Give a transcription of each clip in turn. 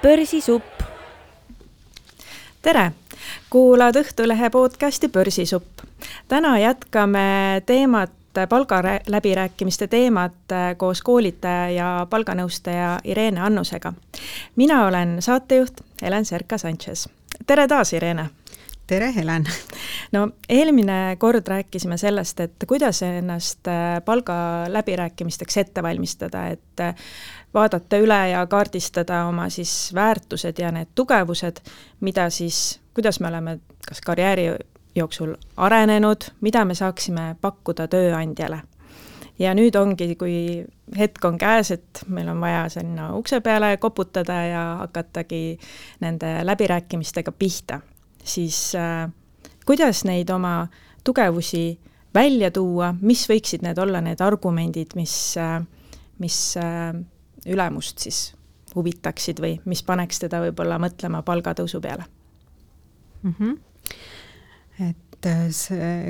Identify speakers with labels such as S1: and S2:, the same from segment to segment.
S1: Börsisupp. Tere! Kuulad Õhtulehe podcasti Börsisupp. Täna jätkame palgaläbirääkimiste teemat koos koolitaja ja palganõustaja Irene Annusega. Mina olen saatejuht Helen Serka-Sanchez. Tere taas, Irene!
S2: Tere, Helen!
S1: No, eelmine kord rääkisime sellest, et kuidas ennast palgaläbirääkimisteks ette valmistada, et vaadata üle ja kaardistada oma siis väärtused ja need tugevused, mida siis, kuidas me oleme kas karjääri jooksul arenenud, mida me saaksime pakkuda tööandjale. Ja nüüd ongi, kui hetk on käes, et meil on vaja sinna ukse peale koputada ja hakatagi nende läbirääkimistega pihta, siis kuidas neid oma tugevusi välja tuua, mis võiksid need olla need argumendid, mis ülemust siis huvitaksid või mis paneks teda võib-olla mõtlema palgatõusu peale?
S2: Et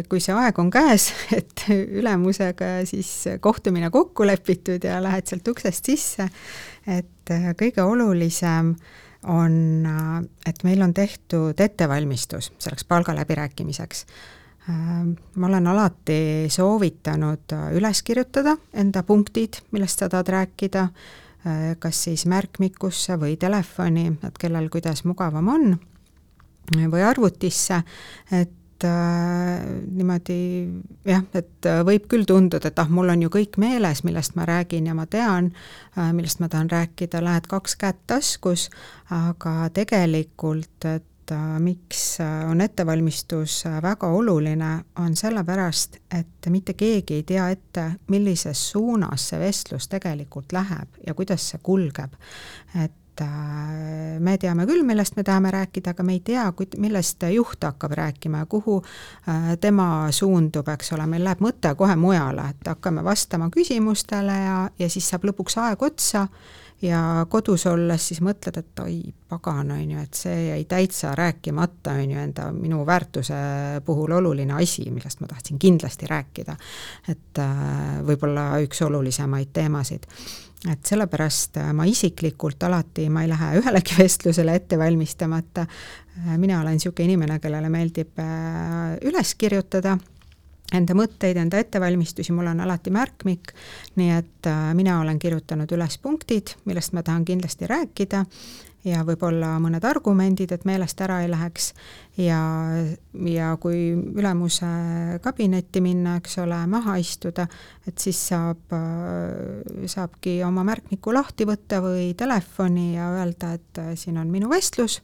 S2: kui see aeg on käes, et ülemusega siis kohtumine kokku lepitud ja lähed sealt uksest sisse, et kõige olulisem on, et meil on tehtud ettevalmistus selleks palgaläbirääkimiseks. Ma olen alati soovitanud üles kirjutada enda punktid, millest sa tahad rääkida, kas siis märkmikusse või telefoni, et kellel kuidas mugavam on, või arvutisse, et niimoodi, jah, et võib küll tunduda, et mul on ju kõik meeles, millest ma räägin ja ma tean, millest ma tahan rääkida, lähed 2 kätt taskus, aga tegelikult, et miks on ettevalmistus väga oluline, on sellepärast, et mitte keegi ei tea ette, millises suunas see vestlus tegelikult läheb ja kuidas see kulgeb. Et me teame küll, millest me tahame rääkida, aga me ei tea, millest juht hakkab rääkima ja kuhu tema suundub, eks ole, meil läheb mõte kohe mujale, et hakkame vastama küsimustele ja siis saab lõpuks aeg otsa ja kodus olles siis mõtled, et oi, pagan, on ju, et see jäi täitsa rääkimata, on ju, minu väärtuse puhul oluline asi, millest ma tahtsin kindlasti rääkida, et võib-olla üks olulisemaid teemasid. Et sellepärast ma isiklikult alati, ma ei lähe ühelegi vestlusele ette valmistamata. Mina olen niisugune inimene, kellele meeldib üles kirjutada enda mõtteid, enda ettevalmistusi, mul on alati märkmik, nii et mina olen kirjutanud üles punktid, millest ma tahan kindlasti rääkida ja võib-olla mõned argumendid, et meelest ära ei läheks ja kui ülemuse kabinetti minna, eks ole, maha istuda, et siis saabki oma märkmiku lahti võtta või telefoni ja öelda, et siin on minu vestlus,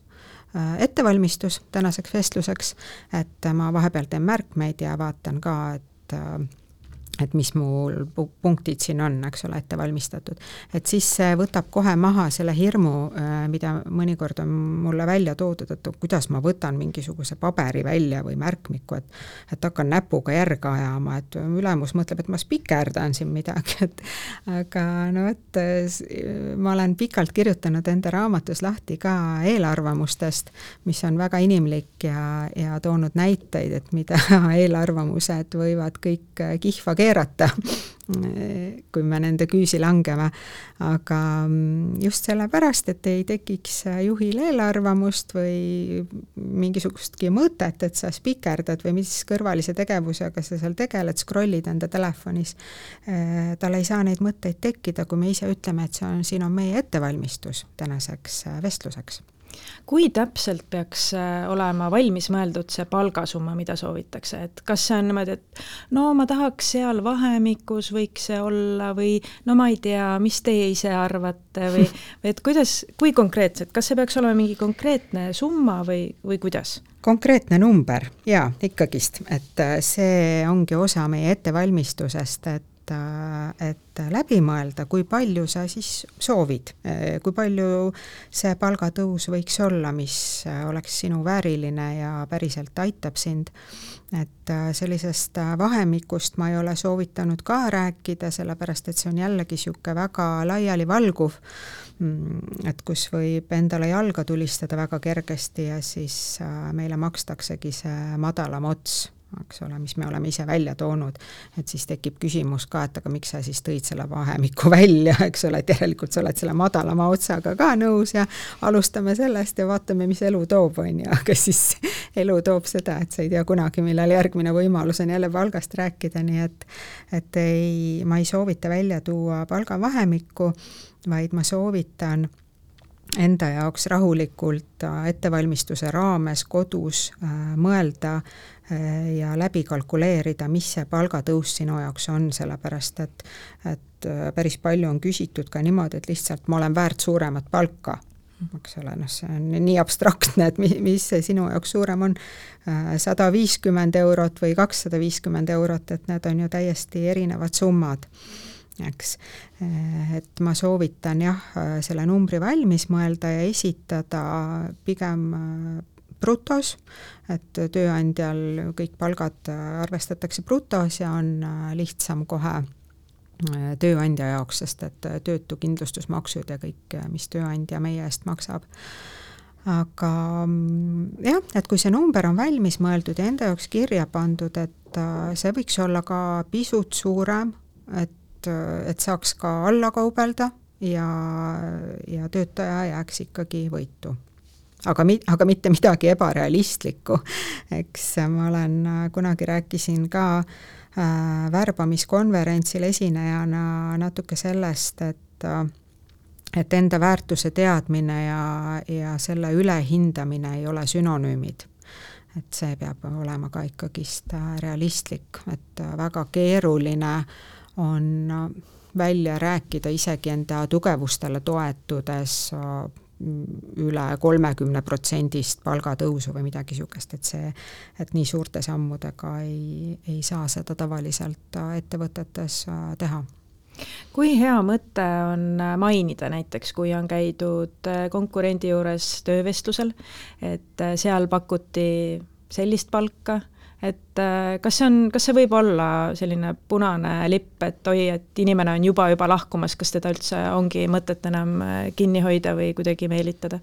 S2: ettevalmistus tänaseks vestluseks, et ma vahepeal teen märkmeid ja vaatan ka, et mis mul punktid siin on, eks ole, ette valmistatud. Et siis see võtab kohe maha selle hirmu, mida mõnikord on mulle välja toodud, et kuidas ma võtan mingisuguse paberi välja või märkmiku, et hakkan näpuga järga ajama, et ülemus mõtleb, et ma spikerdan siin midagi. Aga no et ma olen pikalt kirjutanud enda raamatus lahti ka eelarvamustest, mis on väga inimlik ja toonud näiteid, et mida eelarvamused võivad kõik kihva keerata, kui me nende küüsi langeme. Aga just sellepärast, et ei tekiks juhil eelarvamust või mingisugustki mõtet, et sa spikerdad või mis kõrvalise tegevusega sa seal tegeled, scrollid enda telefonis. Tal ei saa neid mõtteid tekkida, kui me ise ütleme, et siin on meie ettevalmistus tänaseks vestluseks.
S1: Kui täpselt peaks olema valmis mõeldud see palgasumma, mida soovitakse? Et kas see on niimoodi, et no ma tahaks seal vahemikus võiks see olla või no ma ei tea, mis teie ise arvate või et kui konkreetselt, kas see peaks olema mingi konkreetne summa või kuidas?
S2: Konkreetne number, jaa, ikkagist, et see ongi osa meie ettevalmistusest, et läbi mõelda, kui palju sa siis soovid, kui palju see palgatõus võiks olla, mis oleks sinu vääriline ja päriselt aitab sind. Et sellisest vahemikust ma ei ole soovitanud ka rääkida, sellepärast et see on jällegi niisugune väga laiali valguv, et kus võib endale jalga tulistada väga kergesti ja siis meile makstaksegi see madalam ots eks ole, mis me oleme ise välja toonud, et siis tekib küsimus ka, et aga miks sa siis tõid selle vahemiku välja, eks ole, et järelikult sa oled selle madalama otsaga ka nõus ja alustame sellest ja vaatame, mis elu toob, on ju, aga siis elu toob seda, et sa ei tea kunagi, millal järgmine võimalus on jälle palgast rääkida, nii et ma ei soovita välja tuua palgavahemikku, vaid ma soovitan enda jaoks rahulikult ettevalmistuse raames kodus mõelda ja läbi kalkuleerida, mis see palgatõus sinu jaoks on, sellepärast et päris palju on küsitud ka niimoodi, et lihtsalt ma olen väärt suuremat palka. Eks ole, see on nii abstraktne, et mis see sinu jaoks suurem on, 150 eurot või 250 eurot, et need on ju täiesti erinevad summad. Eks. Et ma soovitan selle numbri valmis mõelda ja esitada pigem brutos, et tööandjal kõik palgad arvestatakse brutos ja on lihtsam kohe tööandja jaoks, sest et töötukindlustusmaksud ja kõik, mis tööandja meie eest maksab. Aga et kui see number on valmis mõeldud ja enda jaoks kirja pandud, et see võiks olla ka pisut suurem, et saaks ka alla kaubelda ja töötaja jääks ikkagi võitu. Aga mitte midagi ebarealistlikku. Eks ma olen kunagi rääkisin ka värbamiskonverentsil esinejana natuke sellest, et enda väärtuse teadmine ja selle ülehindamine ei ole sünonüümid. Et see peab olema ka ikkagist realistlik, et väga keeruline on välja rääkida isegi enda tugevustele toetudes üle 30% palgatõusu või midagi sugust, et nii suurte sammudega ei saa seda tavaliselt ettevõtetes teha.
S1: Kui hea mõte on mainida näiteks, kui on käidud konkurendi juures töövestlusel, et seal pakuti sellist palka, et kas see võib olla selline punane lipp, et et inimene on juba lahkumas, kas teda üldse ongi mõtet enam kinni hoida või kuidagi meelitada?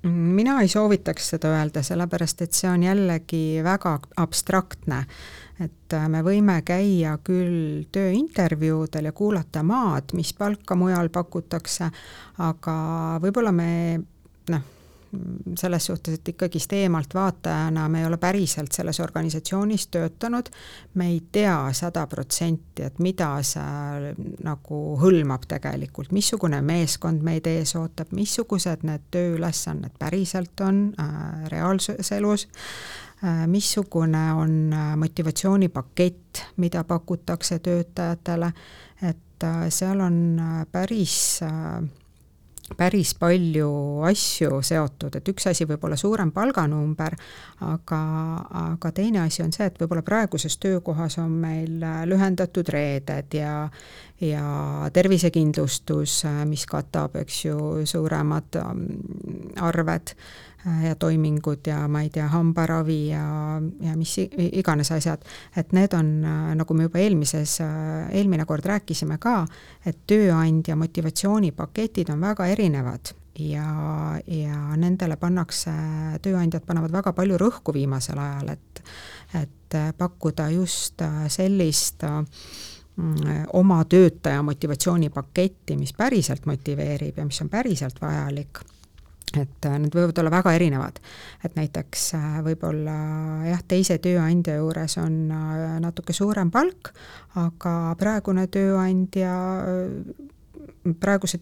S2: Mina ei soovitaks seda öelda, sellepärast et see on jällegi väga abstraktne, et me võime käia küll tööintervjuudel ja kuulata maad, mis palka mujal pakutakse, aga võib-olla me selles suhtes, et ikkagist eemalt vaatajana me ei ole päriselt selles organisatsioonis töötanud, me ei tea 100%, et mida see nagu hõlmab tegelikult, missugune meeskond meid ees ootab, missugused need tööülesanded päriselt on reaalses elus, missugune on motivatsioonipakett, mida pakutakse töötajatele, et seal on päris palju asju seotud, et üks asi võib olla suurem palganumber, aga teine asi on see, et võib-olla praeguses töökohas on meil lühendatud reeded ja tervisekindlustus, mis katab, eks ju, suuremad arved ja toimingud ja ma ei tea, hambaravi ja mis iganes asjad, et need on, nagu me juba eelmine kord rääkisime ka, et tööandja motivatsioonipaketid on väga erinevad ja nendele tööandjad panevad väga palju rõhku viimasel ajal, et pakkuda just sellist oma töötaja motivatsioonipaketti, mis päriselt motiveerib ja mis on päriselt vajalik. Et need võivad olla väga erinevad, et näiteks võib-olla teise tööandja juures on natuke suurem palk, aga praeguse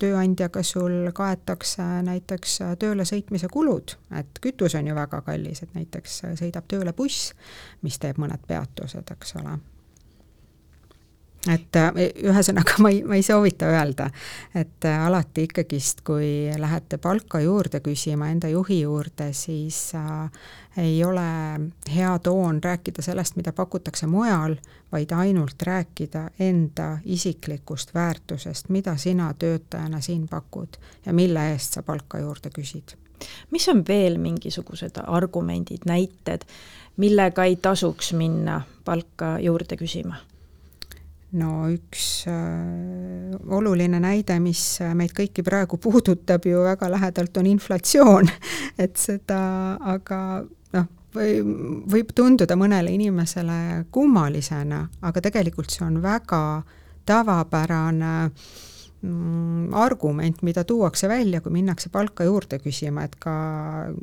S2: tööandjaga sul kaetakse näiteks tööle sõitmise kulud, et kütus on ju väga kallis, et näiteks sõidab tööle buss, mis teeb mõned peatused, eks ole. Et ühesõnaga ma ei soovita öelda, et alati ikkagist, kui lähete palka juurde küsima enda juhi juurde, siis ei ole hea toon rääkida sellest, mida pakutakse mujal, vaid ainult rääkida enda isiklikust väärtusest, mida sina töötajana siin pakud ja mille eest sa palka juurde küsid.
S1: Mis on veel mingisugused argumendid, näited, millega ei tasuks minna palka juurde küsima?
S2: No üks oluline näide, mis meid kõiki praegu puudutab ju väga lähedalt, on inflatsioon, et seda, aga võib tunduda mõnele inimesele kummalisena, aga tegelikult see on väga tavapärane argument, mida tuuakse välja, kui minnakse palka juurde küsima, et ka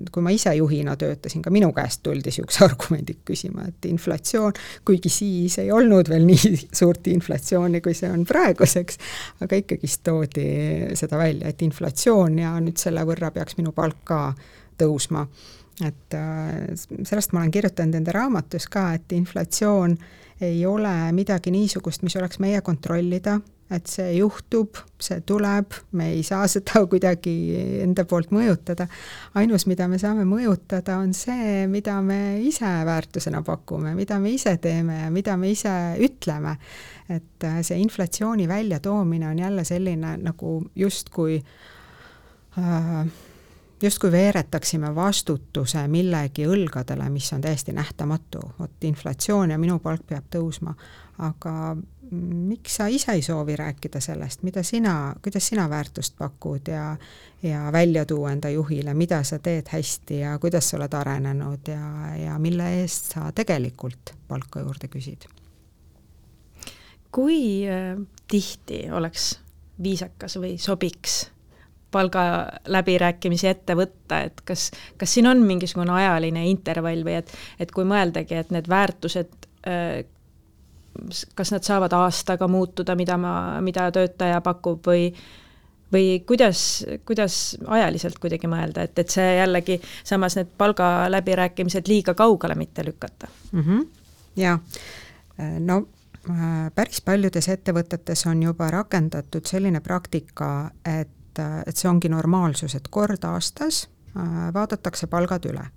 S2: kui ma ise juhina töötasin, ka minu käest tuldi niisuguse argumendid küsima, et inflatsioon, kuigi siis ei olnud veel nii suurt inflatsiooni, kui see on praeguseks, aga ikkagist toodi seda välja, et inflatsioon ja nüüd selle võrra peaks minu palk ka tõusma. Et sellest ma olen kirjutanud enda raamatus ka, et inflatsioon ei ole midagi niisugust, mis oleks meie kontrollida, et see juhtub, see tuleb, me ei saa seda kuidagi enda poolt mõjutada. Ainus, mida me saame mõjutada, on see, mida me ise väärtusena pakume, mida me ise teeme ja mida me ise ütleme. Et see inflatsiooni väljatoomine on jälle selline nagu justkui veeretaksime vastutuse millegi õlgadele, mis on täiesti nähtamatu. Vot inflatsioon ja minu palk peab tõusma. Aga miks sa ise ei soovi rääkida sellest, kuidas sina väärtust pakud ja välja tuua enda juhile, mida sa teed hästi ja kuidas sa oled arenenud ja mille eest sa tegelikult palka juurde küsid?
S1: Kui tihti oleks viisakas või sobiks palga läbirääkimisi ette võtta, et kas siin on mingisugune ajaline intervall või et kui mõeldagi, et need väärtused, kas nad saavad aastaga muutuda, mida töötaja pakub või kuidas ajaliselt kuidagi mõelda, et see jällegi samas need palga läbirääkimised liiga kaugele mitte lükata?
S2: Jaa, no päris paljudes ettevõtetes on juba rakendatud selline praktika, et see ongi normaalsus, et kord aastas vaadatakse palgad üle.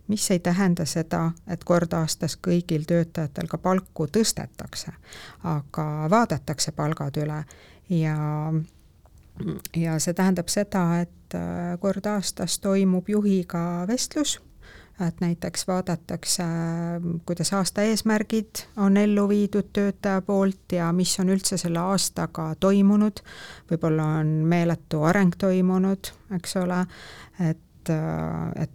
S2: Mis ei tähenda seda, et kord aastas kõigil töötajatel ka palku tõstetakse, aga vaadatakse palgad üle ja see tähendab seda, et kord aastas toimub juhiga vestlus, et näiteks vaadatakse, kuidas aasta eesmärgid on ellu viidud töötaja poolt ja mis on üldse selle aastaga toimunud, võib-olla on meeletu areng toimunud, eks ole, et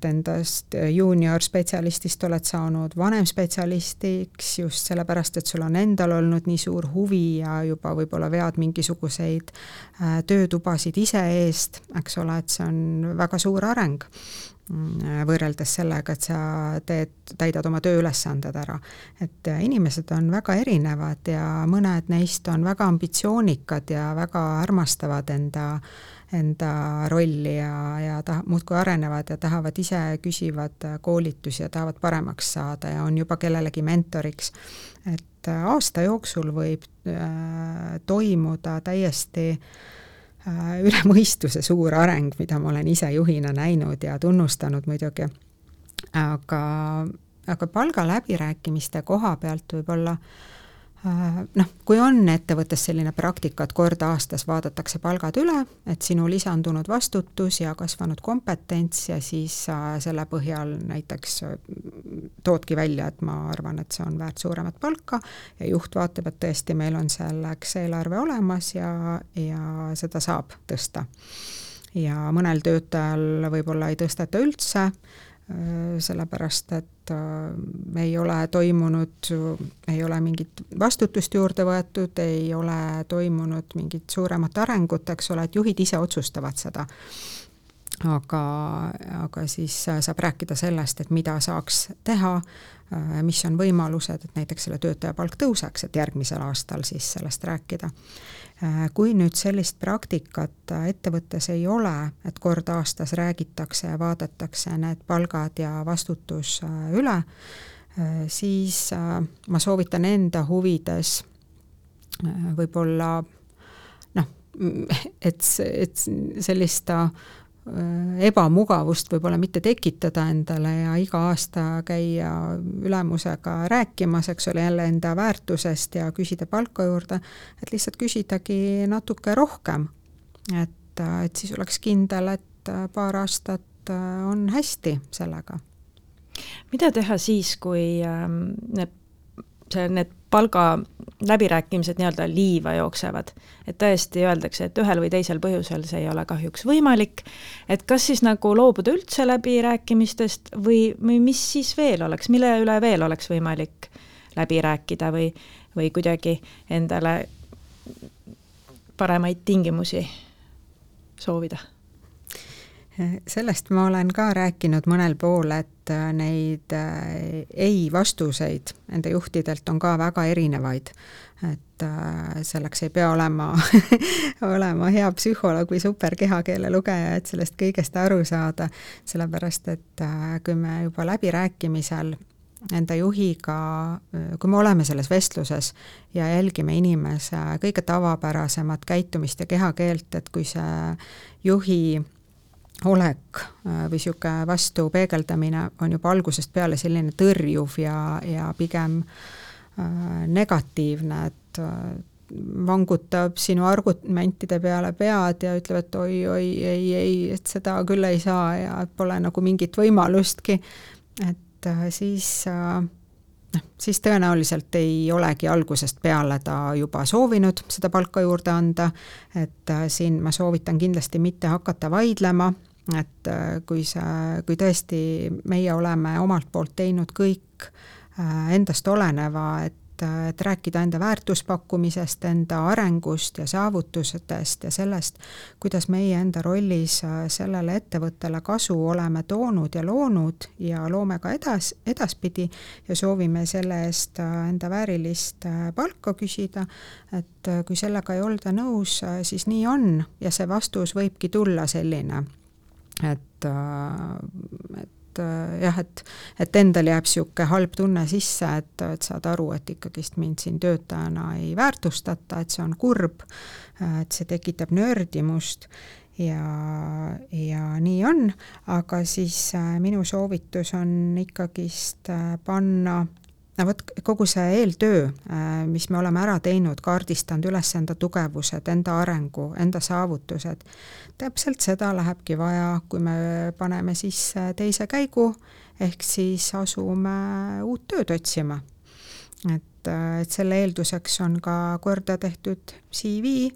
S2: endast junior spetsialistist oled saanud vanem spetsialistiks just sellepärast, et sul on endal olnud nii suur huvi ja juba võib-olla vead mingisuguseid töötubasid ise eest, eks ole, et see on väga suur areng võrreldes sellega, et sa täidad oma tööülesanded ära. Et inimesed on väga erinevad ja mõned neist on väga ambitsioonikad ja väga armastavad enda rolli ja muudkui arenevad ja tahavad ise küsivad koolitusi ja tahavad paremaks saada ja on juba kellelegi mentoriks. Et aasta jooksul võib toimuda täiesti üle mõistuse suur areng, mida ma olen ise juhina näinud ja tunnustanud muidugi. Aga palga läbirääkimiste koha pealt võib-olla kui on ettevõttes selline praktika, et kord aastas vaadatakse palgad üle, et sinu lisandunud vastutus ja kasvanud kompetents ja siis selle põhjal näiteks toodki välja, et ma arvan, et see on väärt suuremat palka ja juht vaatab, et tõesti meil on selleks eelarve olemas ja seda saab tõsta. Ja mõnel töötajal võib-olla ei tõsteta üldse, sellepärast, et ei ole toimunud, ei ole mingit vastutust juurde võetud, ei ole toimunud mingit suuremat arengut, eks ole, et juhid ise otsustavad seda. Aga siis saab rääkida sellest, et mida saaks teha, mis on võimalused, et näiteks selle töötaja palk tõuseks, et järgmisel aastal siis sellest rääkida. Kui nüüd sellist praktikat ettevõttes ei ole, et kord aastas räägitakse ja vaadatakse need palgad ja vastutus üle, siis ma soovitan enda huvides võib-olla et sellist ebamugavust võib-olla mitte tekitada endale ja iga aasta käia ülemusega rääkimas, eks ole, jälle enda väärtusest ja küsida palka juurde, et lihtsalt küsidagi natuke rohkem, et siis oleks kindel, et paar aastat on hästi sellega.
S1: Mida teha siis, kui need palga läbirääkimised nii-öelda liiva jooksevad. Et tõesti öeldakse, et ühel või teisel põhjusel see ei ole kahjuks võimalik, et kas siis nagu loobuda üldse läbirääkimistest või mis siis veel oleks, mille üle veel oleks võimalik läbi rääkida või kuidagi endale paremaid tingimusi soovida?
S2: Sellest ma olen ka rääkinud mõnel pool, et neid ei-vastuseid enda juhtidelt on ka väga erinevaid. Et selleks ei pea olema hea psühholoog või super kehakeele lugeja, et sellest kõigest aru saada, sellepärast et kui me juba läbirääkimisel enda juhiga, kui me oleme selles vestluses ja jälgime inimese kõige tavapärasemat käitumist ja kehakeelt, et kui see juhi olek või siuke vastu peegeldamine on juba algusest peale selline tõrjuv ja pigem negatiivne, et vangutab sinu argumentide peale pead ja ütleb, et oi, ei, et seda küll ei saa ja pole nagu mingit võimalustki, et siis tõenäoliselt ei olegi algusest peale ta juba soovinud seda palka juurde anda, et siin ma soovitan kindlasti mitte hakata vaidlema, et kui tõesti meie oleme omalt poolt teinud kõik endast oleneva, et rääkida enda väärtuspakkumisest, enda arengust ja saavutustest ja sellest, kuidas meie enda rollis sellele ettevõttele kasu oleme toonud ja loonud ja loome ka edaspidi ja soovime selle eest enda väärilist palka küsida, et kui sellega ei olda nõus, siis nii on ja see vastus võibki tulla selline, et endal jääb siuke halb tunne sisse, et saad aru, et ikkagist mind siin töötajana ei väärtustata, et see on kurb, et see tekitab nördimust ja nii on, aga siis minu soovitus on ikkagist panna kogu see eeltöö, mis me oleme ära teinud, kaardistanud üles enda tugevused, enda arengu, enda saavutused, täpselt seda lähebki vaja, kui me paneme sisse teise käigu, ehk siis asume uut tööd otsima. Et selle eelduseks on ka korda tehtud CV,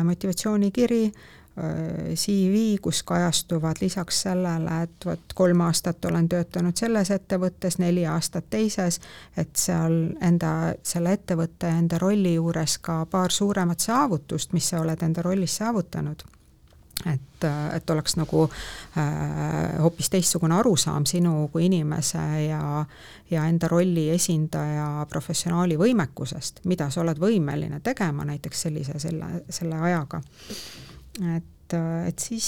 S2: motivatsioonikiri, CV, kus kajastuvad lisaks sellele, et 3 aastat olen töötanud selles ettevõttes, 4 aastat teises, et seal selle ettevõtte enda rolli juures ka paar suuremat saavutust, mis sa oled enda rollis saavutanud. Et oleks nagu hoopis teistsugune arusaam sinu kui inimese ja enda rolli esindaja professionaali võimekusest, mida sa oled võimeline tegema näiteks selle ajaga. Et siis,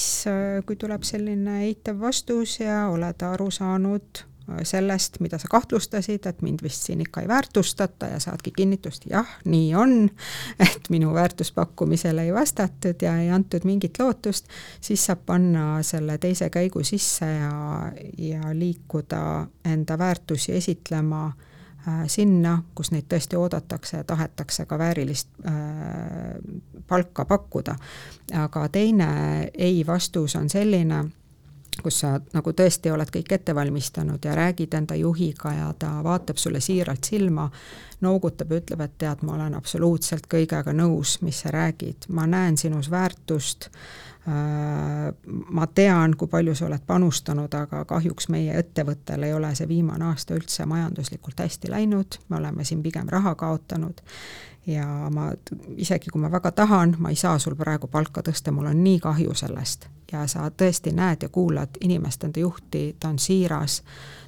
S2: kui tuleb selline eitav vastus ja oled aru saanud sellest, mida sa kahtlustasid, et mind vist siin ikka ei väärtustata ja saadki kinnitust, jah, nii on, et minu väärtuspakkumisele ei vastatud ja ei antud mingit lootust, siis saab panna selle teise käigu sisse ja liikuda enda väärtusi esitlema sinna, kus neid tõesti oodatakse ja tahetakse ka väärilist palka pakkuda. Aga teine ei-vastus on selline, kus sa nagu tõesti oled kõik ette valmistanud ja räägid enda juhiga ja ta vaatab sulle siiralt silma, noogutab ja ütleb, et tead, ma olen absoluutselt kõigega nõus, mis sa räägid. Ma näen sinus väärtust, ma tean, kui palju sa oled panustanud, aga kahjuks meie ettevõttel ei ole see viimane aasta üldse majanduslikult hästi läinud, me oleme siin pigem raha kaotanud ja isegi kui ma väga tahan, ma ei saa sul praegu palka tõsta, mul on nii kahju sellest ja sa tõesti näed ja kuulad inimest, enda juhti, ta on siiras,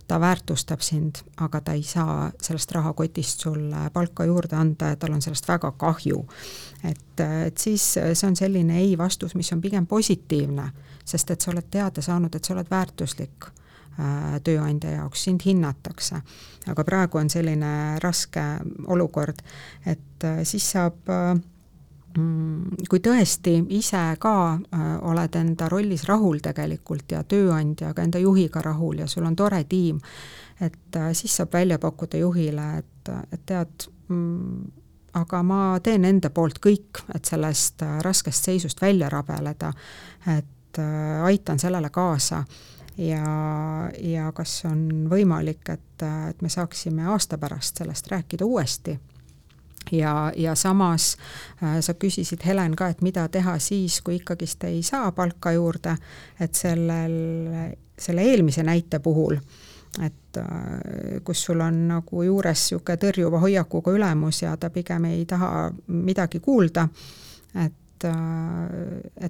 S2: ta väärtustab sind, aga ta ei saa sellest rahakotist sulle palka juurde anda ja tal on sellest väga kahju. Et siis see on selline ei-vastus, mis on pigem positiivne, sest et sa oled teada saanud, et sa oled väärtuslik tööandja jaoks, sind hinnatakse. Aga praegu on selline raske olukord, et siis saab, kui tõesti ise ka oled enda rollis rahul tegelikult ja tööandjaga, enda juhiga rahul ja sul on tore tiim, et siis saab välja pakkuda juhile, et tead, aga ma teen enda poolt kõik, et sellest raskest seisust välja rabeleda, et aitan sellele kaasa ja kas on võimalik, et me saaksime aasta pärast sellest rääkida uuesti. Ja samas sa küsisid, Helen, ka, et mida teha siis, kui ikkagist ei saa palka juurde, et selle eelmise näite puhul, et kus sul on nagu juures niisugune tõrjuva hoiakuga ülemus ja ta pigem ei taha midagi kuulda, et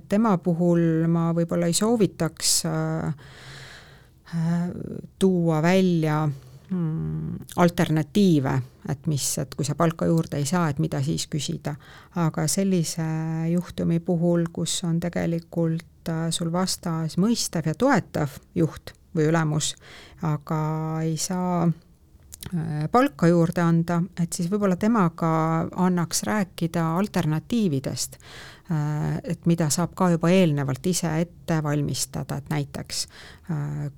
S2: tema puhul ma võib-olla ei soovitaks tuua välja alternatiive, et kui sa palka juurde ei saa, et mida siis küsida. Aga sellise juhtumi puhul, kus on tegelikult sul vastas mõistav ja toetav juht või ülemus, aga ei saa palka juurde anda, et siis võib-olla temaga annaks rääkida alternatiividest, et mida saab ka juba eelnevalt ise ette valmistada, et näiteks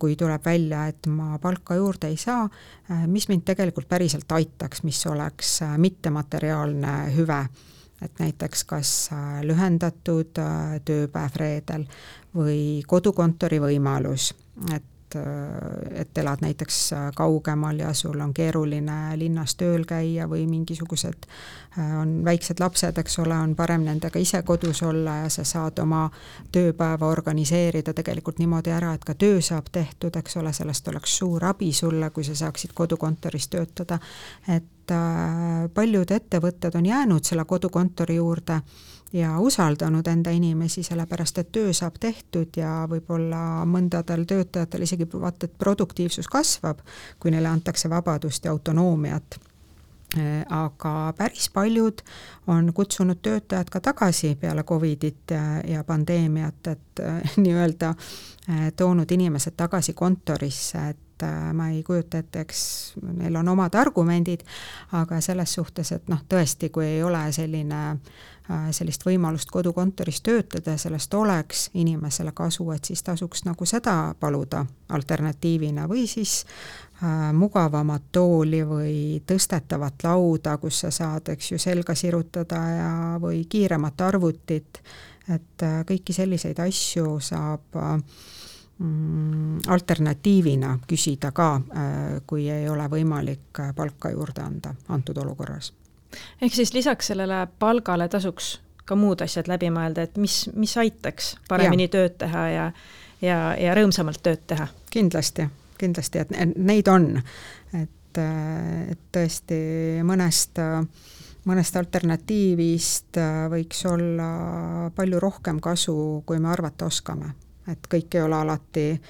S2: kui tuleb välja, et ma palka juurde ei saa, mis mind tegelikult päriselt aitaks, mis oleks mittemateriaalne hüve, et näiteks kas lühendatud tööpäev reedel või kodukontori võimalus, et elad näiteks kaugemal ja sul on keeruline linnas tööl käia või mingisugused on väiksed lapsed, eks ole, on parem nendega ise kodus olla ja sa saad oma tööpäeva organiseerida tegelikult niimoodi ära, et ka töö saab tehtud, eks ole, sellest oleks suur abi sulle, kui sa saaksid kodukontoris töötada, et paljud ettevõtted on jäänud selle kodukontori juurde ja usaldanud enda inimesi, sellepärast et töö saab tehtud ja võib-olla mõndadel töötajatel isegi vaata, et produktiivsus kasvab, kui neile antakse vabadust ja autonoomiat. Aga päris paljud on kutsunud töötajad ka tagasi peale Covidit ja pandeemiat, et nii-öelda toonud inimesed tagasi kontorisse, et ma ei kujuta ette, eks neil on omad argumendid, aga selles suhtes, et tõesti, kui ei ole sellist võimalust kodukontoris töötada, sellest oleks inimesele kasu, et siis tasuks nagu seda paluda alternatiivina või siis mugavamat tooli või tõstetavat lauda, kus sa saad, eks ju, selga sirutada või kiiremat arvutit, et kõiki selliseid asju saab alternatiivina küsida ka, kui ei ole võimalik palka juurde anda antud olukorras.
S1: Ehk siis lisaks sellele palgale tasuks ka muud asjad läbi mõelda, et mis aitaks paremini tööd teha ja rõõmsamalt tööd teha? Kindlasti,
S2: et neid on, et tõesti mõnest alternatiivist võiks olla palju rohkem kasu, kui me arvata oskame. Et kõik ei ole alati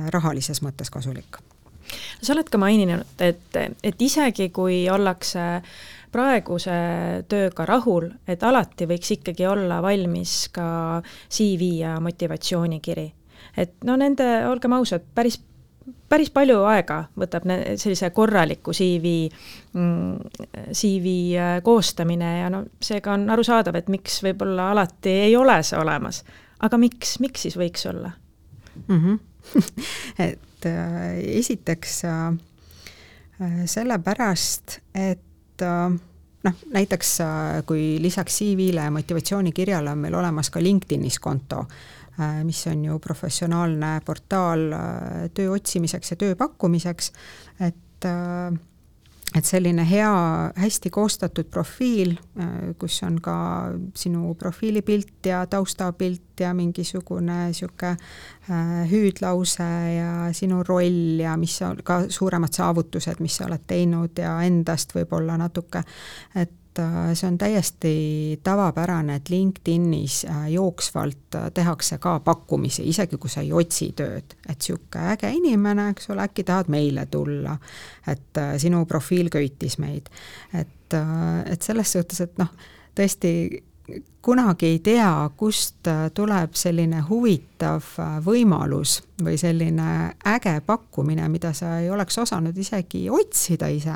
S2: rahalises mõttes kasulik.
S1: Sa oled ka maininud, et isegi kui ollakse praeguse tööga rahul, et alati võiks ikkagi olla valmis ka CV ja motivatsioonikiri. Et olgem ausad, päris palju aega võtab sellise korraliku CV koostamine ja seega on arusaadav, et miks võib-olla alati ei ole see olemas. Aga miks siis võiks olla?
S2: Et esiteks sellepärast, et näiteks kui lisaks CV-le ja motivatsioonikirjale on meil olemas ka LinkedInis konto, mis on ju professionaalne portaal töö otsimiseks ja töö pakkumiseks, et selline hästi koostatud profiil, kus on ka sinu profiilipilt ja taustapilt ja mingisugune siuke hüüdlause ja sinu roll ja mis on ka suuremad saavutused, mis sa oled teinud ja endast võib-olla natuke, et see on täiesti tavapärane, et LinkedInis jooksvalt tehakse ka pakkumisi, isegi kui sa ei otsi tööd, et siuke äge inimene, eks ole, äkki tahad meile tulla, et sinu profiil köitis meid, et selles suhtes, et tõesti kunagi ei tea, kust tuleb selline huvitav võimalus või selline äge pakkumine, mida sa ei oleks osanud isegi otsida ise,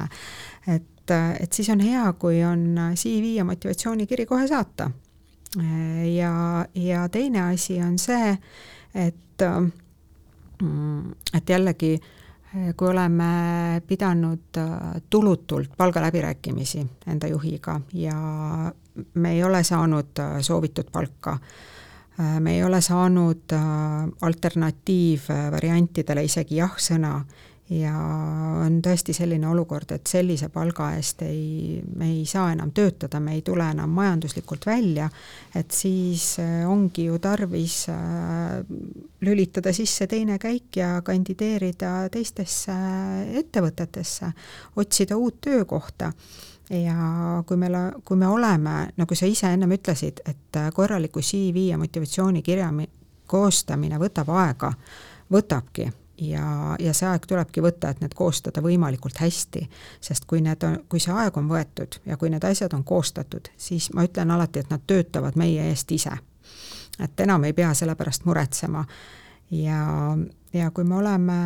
S2: et siis on hea, kui on CV ja motivatsioonikiri kohe saata. Ja teine asi on see, et jällegi, kui oleme pidanud tulutult palgaläbirääkimisi enda juhiga ja me ei ole saanud soovitud palka, me ei ole saanud alternatiivvariantidele isegi jah-sõna ja on tõesti selline olukord, et sellise palga eest me ei saa enam töötada, me ei tule enam majanduslikult välja, et siis ongi ju tarvis lülitada sisse teine käik ja kandideerida teistesse ettevõtetesse, otsida uut töökohta. Ja kui me oleme, nagu sa ise ennem ütlesid, et korraliku CV ja motivatsioonikirja koostamine võtab aega, võtabki ja see aeg tulebki võtta, et need koostada võimalikult hästi, sest kui see aeg on võetud ja kui need asjad on koostatud, siis ma ütlen alati, et nad töötavad meie eest ise. Et enam ei pea selle pärast muretsema ja kui me oleme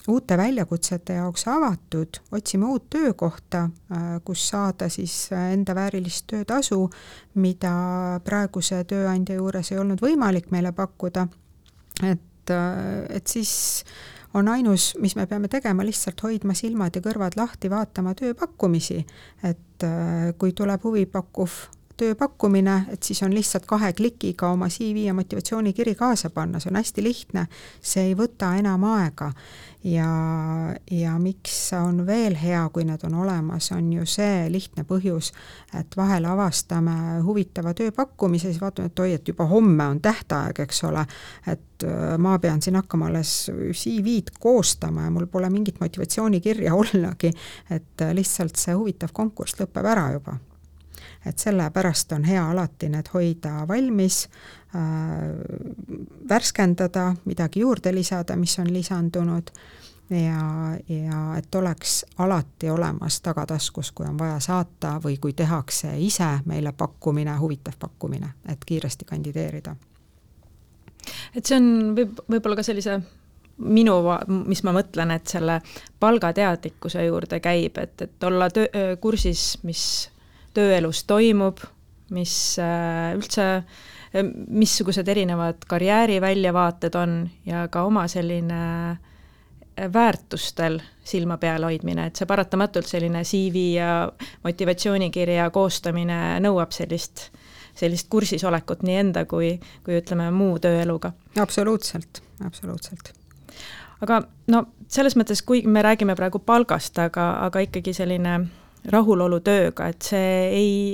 S2: uute väljakutsete jaoks avatud, otsime uut töökohta, kus saada siis enda väärilist töötasu, mida praeguse tööandja juures ei olnud võimalik meile pakkuda, et siis on ainus, mis me peame tegema, lihtsalt hoidma silmad ja kõrvad lahti, vaatama tööpakkumisi, et kui tuleb huvipakkuv tööpakkumine, et siis on lihtsalt 2 klikiga oma CV ja motivatsioonikiri kaasa panna, see on hästi lihtne, see ei võta enam aega ja miks on veel hea, kui need on olemas, on ju see lihtne põhjus, et vahel avastame huvitava tööpakkumise, siis vaatame, et et juba homme on tähtaeg, eks ole, et ma pean siin hakkama alles CV-d koostama ja mul pole mingit motivatsioonikirja ollagi, et lihtsalt see huvitav konkurss lõpeb ära juba. Et sellepärast on hea alati need hoida valmis, värskendada, midagi juurde lisada, mis on lisandunud ja et oleks alati olemas tagataskus, kui on vaja saata või kui tehakse ise meile pakkumine, huvitav pakkumine, et kiiresti kandideerida.
S1: Et see on võib-olla ka sellise mis ma mõtlen, et selle palgateadlikkuse juurde käib, et olla kursis, mis tööelus toimub, mis üldse, missugused erinevad karjääriväljavaated on ja ka oma selline väärtustel silma peal hoidmine, et see paratamatult selline CV ja motivatsioonikirja koostamine nõuab sellist kursisolekut nii enda kui ütleme muu tööeluga.
S2: Absoluutselt.
S1: Aga no selles mõttes, kui me räägime praegu palgast, aga ikkagi selline rahulolu tööga, et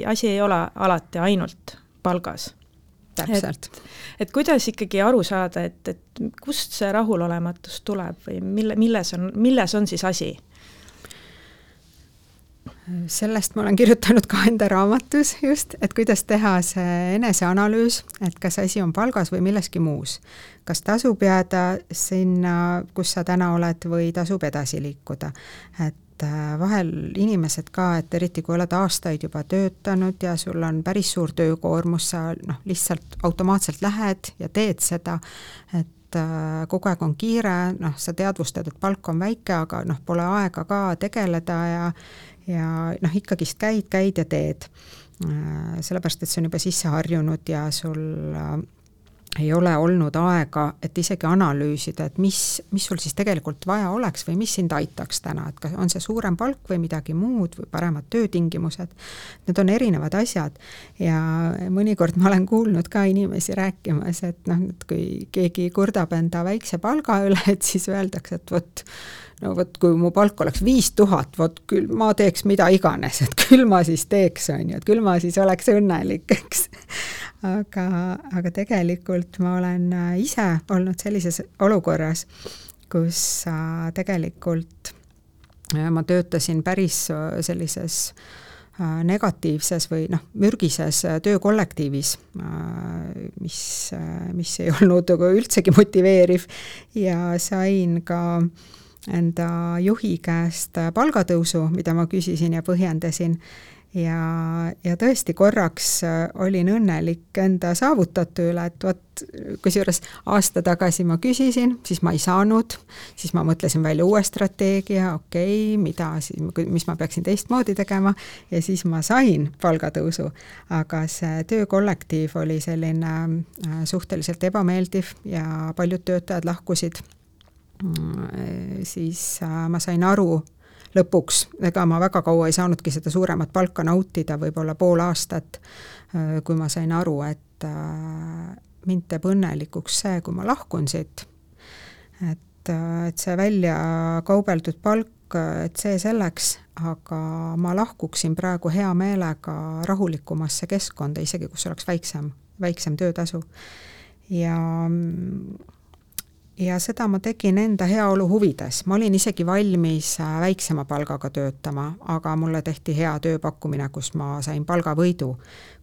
S1: asi ei ole alati ainult palgas.
S2: Täpselt.
S1: Et kuidas ikkagi aru saada, et kust see rahulolematus tuleb või milles on siis asi?
S2: Sellest ma olen kirjutanud ka enda raamatus just, et kuidas teha see eneseanalüüs, et kas asi on palgas või milleski muus. Kas tasub jääda sinna, kus sa täna oled või tasub edasi liikuda. Et vahel inimesed ka, et eriti kui oled aastaid juba töötanud ja sul on päris suur töökoormus, sa lihtsalt automaatselt lähed ja teed seda, et kogu aeg on kiire, sa teadvustad, et palk on väike, aga pole aega ka tegeleda ja ikkagist käid ja teed. Sellepärast, et see on juba sisse harjunud ja sul ei ole olnud aega, et isegi analüüsida, et mis sul siis tegelikult vaja oleks või mis sind aitaks täna, et kas on see suurem palk või midagi muud või paremad töötingimused. Need on erinevad asjad ja mõnikord ma olen kuulnud ka inimesi rääkimas, et kui keegi kurdab enda väikse palga üle, et siis öeldakse, et kui mu palk oleks 5000, küll ma teeks mida iganes, et küll ma siis teeks, et küll ma siis oleks õnnelik, eks. Aga tegelikult ma olen ise olnud sellises olukorras, kus tegelikult ma töötasin päris sellises negatiivses või mürgises töökollektiivis, mis ei olnud üldsegi motiveeriv ja sain ka enda juhi käest palgatõusu, mida ma küsisin ja põhjendasin. Ja tõesti korraks olin õnnelik enda saavutatu üle, et kusjuures aasta tagasi ma küsisin, siis ma ei saanud, siis ma mõtlesin välja uue strateegia, mis ma peaksin teistmoodi tegema ja siis ma sain palgatõusu, aga see töökollektiiv oli selline suhteliselt ebameeldiv ja paljud töötajad lahkusid. Siis ma sain aru lõpuks, ega ma väga kaua ei saanudki seda suuremat palka nautida, võib-olla pool aastat, kui ma sain aru, et mind teeb õnnelikuks see, kui ma lahkun siit. Et see välja kaubeldud palk, et see selleks, aga ma lahkuksin praegu hea meelega rahulikumasse keskkonda, isegi kus oleks väiksem töötasu. Ja seda ma tegin enda heaolu huvides. Ma olin isegi valmis väiksema palgaga töötama, aga mulle tehti hea tööpakkumine, kus ma sain palgavõidu.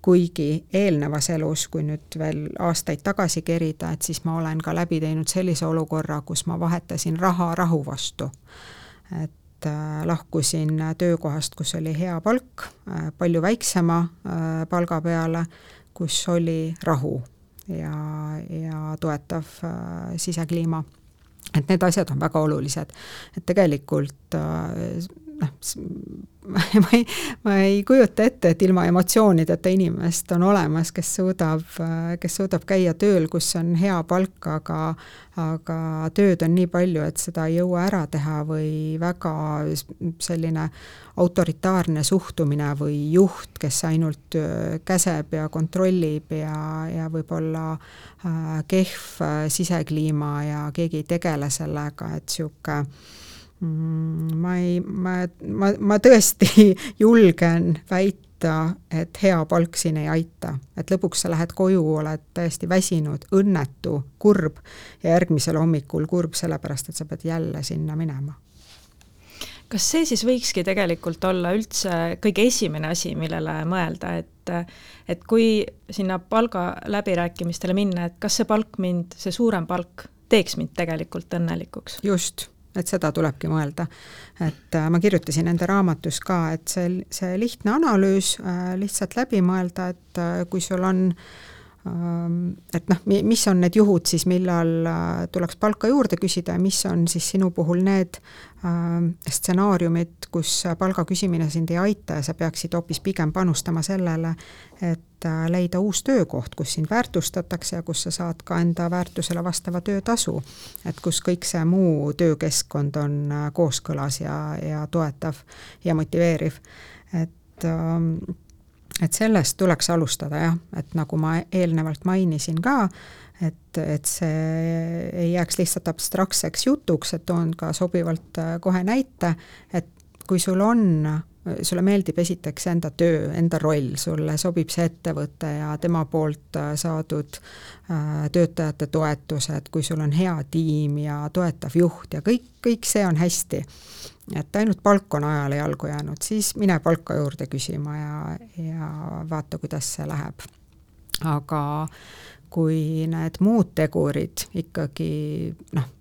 S2: Kuigi eelnevas elus, kui nüüd veel aastaid tagasi kerida, et siis ma olen ka läbi teinud sellise olukorra, kus ma vahetasin raha rahu vastu. Et lahkusin töökohast, kus oli hea palk, palju väiksema palga peale, kus oli rahu ja toetav sisekliima. Et need asjad on väga olulised. Et tegelikult ma ei kujuta ette, et ilma emotsioonideta inimest on olemas, kes suudab käia tööl, kus on hea palk, aga tööd on nii palju, et seda ei jõua ära teha või väga selline autoritaarne suhtumine või juht, kes ainult käseb ja kontrollib ja võib-olla kehv sisekliima ja keegi ei tegele sellega, et siuke ma tõesti julgen väita, et hea palk siin ei aita. Et lõpuks sa lähed koju, oled täiesti väsinud, õnnetu, kurb ja järgmisel hommikul kurb sellepärast, et sa pead jälle sinna minema.
S1: Kas see siis võikski tegelikult olla üldse kõige esimene asi, millele mõelda, et kui sinna palga läbirääkimistele minna, et kas see suurem palk teeks mind tegelikult õnnelikuks?
S2: Just. Et seda tulebki mõelda. Et ma kirjutasin enda raamatus ka, et see lihtne analüüs lihtsalt läbi mõelda, et kui sul on, et mis on need juhud siis, millal tuleks palka juurde küsida ja mis on siis sinu puhul need stsenaariumid, kus palga küsimine sind ei aita ja sa peaksid hoopis pigem panustama sellele, et leida uus töökoht, kus sind väärtustatakse ja kus sa saad ka enda väärtusele vastava töötasu. Et kus kõik see muu töökeskkond on kooskõlas ja toetav ja motiveeriv. Et sellest tuleks alustada jah, et nagu ma eelnevalt mainisin ka, et see ei jääks lihtsalt abstraktseks jutuks, et toon ka sobivalt kohe näite, et kui sulle meeldib esiteks enda töö, enda roll, sulle sobib see ettevõte ja tema poolt saadud töötajate toetused, kui sul on hea tiim ja toetav juht ja kõik see on hästi, et ainult palk on ajale jalgu jäänud, siis mine palka juurde küsima ja vaata, kuidas see läheb. Aga kui need muud tegurid ikkagi,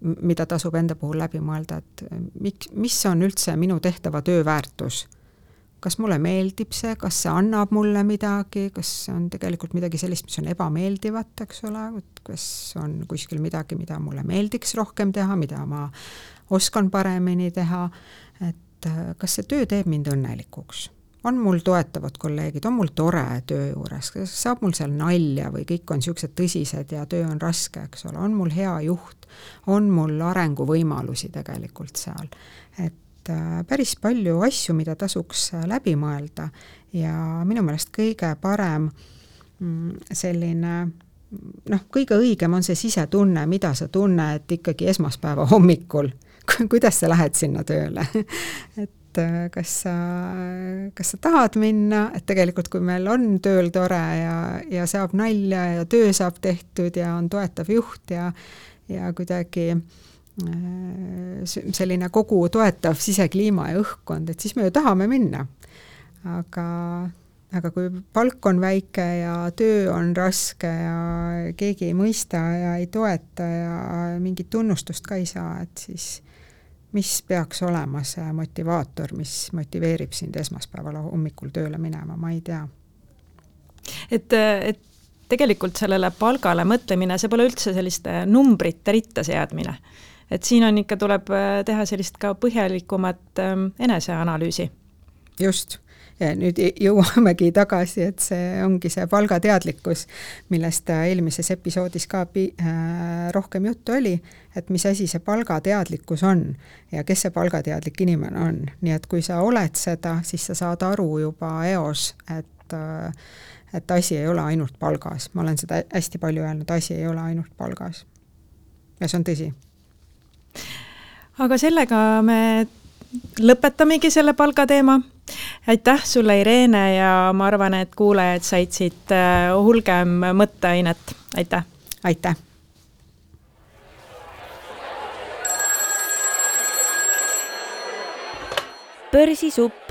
S2: mida tasub enda puhul läbi mõelda, et mis on üldse minu tehtava töö väärtus? Kas mulle meeldib see, kas see annab mulle midagi, kas on tegelikult midagi sellist, mis on ebameeldivat, eks ole, kas on kuskil midagi, mida mulle meeldiks rohkem teha, mida ma oskan paremini teha, et kas see töö teeb mind õnnelikuks? On mul toetavad kolleegid, on mul tore töö juures, saab mul seal nalja või kõik on siuksed tõsised ja töö on raske, eks ole, on mul hea juht, on mul arenguvõimalusi tegelikult seal, et päris palju asju, mida tasuks läbi mõelda ja minu meelest kõige parem selline, kõige õigem on see sisetunne, mida sa tunned ikkagi esmaspäeva hommikul, kuidas sa lähed sinna tööle, et kas sa tahad minna, et tegelikult kui meil on tööl tore ja saab nalja ja töö saab tehtud ja on toetav juht ja kuidagi selline kogu toetav sisekliima ja õhkkond, et siis me ju tahame minna. Aga kui palk on väike ja töö on raske ja keegi ei mõista ja ei toeta ja mingit tunnustust ka ei saa, et siis mis peaks olema see motivaator, mis motiveerib sind esmaspäeval hommikul tööle minema, ma ei tea.
S1: Et tegelikult sellele palgale mõtlemine, see pole üldse selliste numbrite ritta seadmine. Et siin on ikka tuleb teha sellist ka põhjalikumat eneseanalüüsi.
S2: Just. Ja nüüd jõuamegi tagasi, et see ongi see palgateadlikkus, millest eelmises episoodis ka rohkem juttu oli, et mis asi see palgateadlikkus on ja kes see palgateadlik inimene on. Nii et kui sa oled seda, siis sa saad aru juba eos, et et asi ei ole ainult palgas. Ma olen seda hästi palju öelnud, asi ei ole ainult palgas. Ja see on tõsi.
S1: Aga sellega me lõpetamegi selle palgateema. Aitäh sulle, Irene, ja ma arvan, et kuulajad said siit hulgem mõtteainet. Aitäh!
S2: Aitäh!
S3: Börsisupp